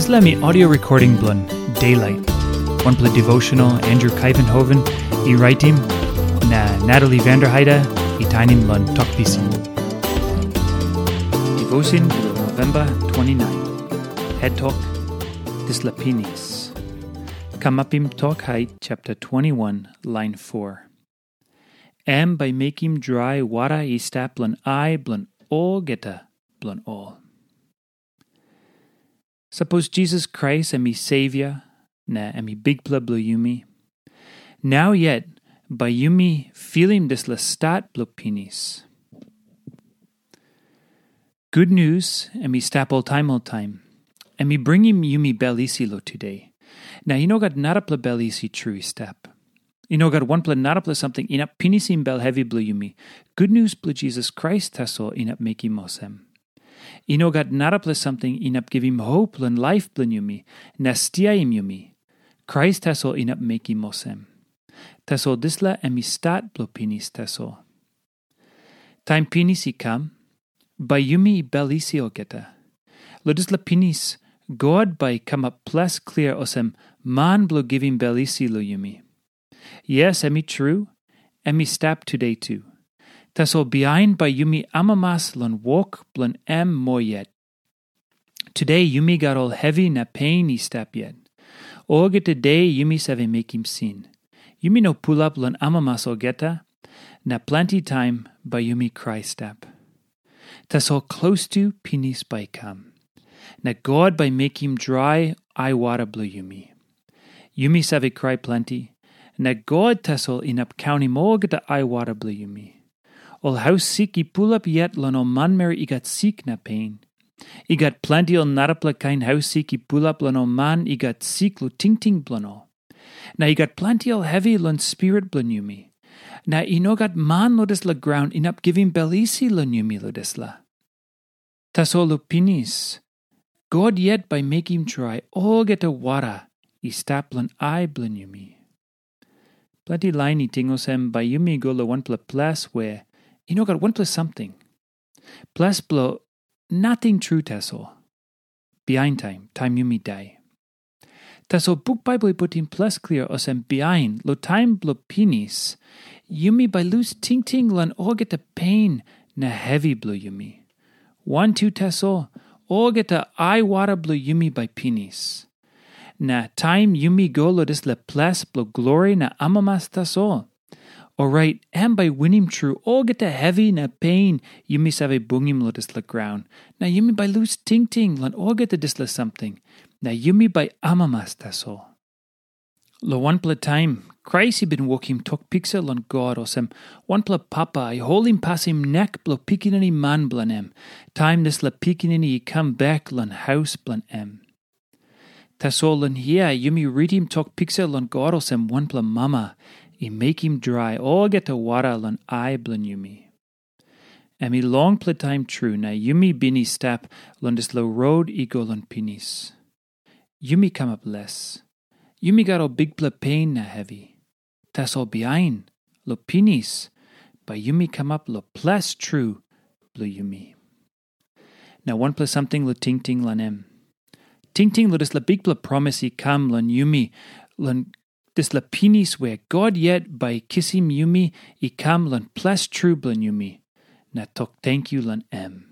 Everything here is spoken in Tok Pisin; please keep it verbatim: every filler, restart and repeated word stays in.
Dispela mi audio recording bilong Daylight, wanpela devotional Andrew Kaivenhoven i raitim, na Natalie Vanderheide i tainim long Tok Pisin. Devotion bilong November twenty-nine. Het tok, dispela pinis. Kamapim Tok Hait chapter twenty-one, line four. Em bai mekim drai wara i stap long ai bilong olgeta bilong ol. Sapos Jisas Krais em i Savior, na em i Bikpela bilong yumi, nau yet bai yumi filim dispela stat bilong pinis. Gutnius em i stap oltaim oltaim. Em i bringim yumi bel isi long tude. Na i no gat narapela bel isi tru i stap. I no gat wanpela narapela samting inap pinisim bel hevi bilong yumi. Gutnius bilong Jisas Krais tasol inap mekim olsem. I no gat narapela samting inap givim hop long laip bilong yumi, na stiaim yumi. Krais tasol inap mekim olsem. Tasol dispela em i stat bilong pinis tasol. Taim pinis i kam, bai yumi bel isi olgeta. Long dispela pinis, God bai i kamap ples klia olsem man bilong givim bel isi long yumi. Yes, em i tru, em i stap tude tu. Tasol bihain bai yumi amamas long wok bilong em moa yet. Tude yumi gat ol hevi na pein i stap yet. Olgeta de yumi save mekim sin. Yumi no pulap long amamas olgeta, na planti taim bai yumi krai stap. Tasol klostu pinis bai i kam, na God bai mekim drai aiwara bilong yumi. Yumi save krai planti, na God tasol inap kaunim olgeta aiwara bilong yumi. Ol haus sik i pulap yet long ol manmeri i gat sik na pein. I gat planti ol narapela kain haus sik i pulap long ol man i gat sik long tingting bilong ol. Na i gat planti ol hevi long spirit bilong yumi. Na i no gat man long dispela graun inap givim bel isi long yumi long dispela. Tasol long pinis, God yet bai mekim drai olgeta wara i stap long ai bilong yumi. Planti lain i ting olsem bai yumi go long wanpela ples we i no gat wanpela samting. Ples bilong nating tru tasol. Bihain taim, taim yumi dai. Tasol buk Baibel i putim ples klia olsem bihain long taim bilong pinis, yumi bai lus tingting long olgeta pein na hevi bilong yumi. Wantu tasol, olgeta aiwara bilong yumi bai pinis. Na taim yumi go long dispela ples bilong glori na amamas tasol, orait em bai winim tru olgeta hevi na pein yumi save bungim long dispela graun, na yumi bai lus tingting long olgeta dispela samting, na yumi bai amamas tasol. Long wanpela taim, Krais i bin wokim tok piksa long God olsem wanpela papa i holim pasim nek bilong pikinini man bilong em, taim dispela pikinini i kam bek long haus bilong em. Tasol long hia yumi ritim tok piksa long God olsem wanpela mama i mekim drai olgeta wara long ai bilong yumi. Em i longpela taim tru na yumi bin i stap long dispela rot i go long pinis. Yumi kamap les. Yumi gat ol bikpela pein na hevi. Tasol bihain, long pinis, bai yumi kamap long ples tru bilong yumi. Na wanpela samting long tingting long em. Tingting long dispela bikpela promis i kam long yumi, long dispela pinis we God yet bai i kisim yumi i kam long ples tru bilong yumi, na tok tenkyu long em.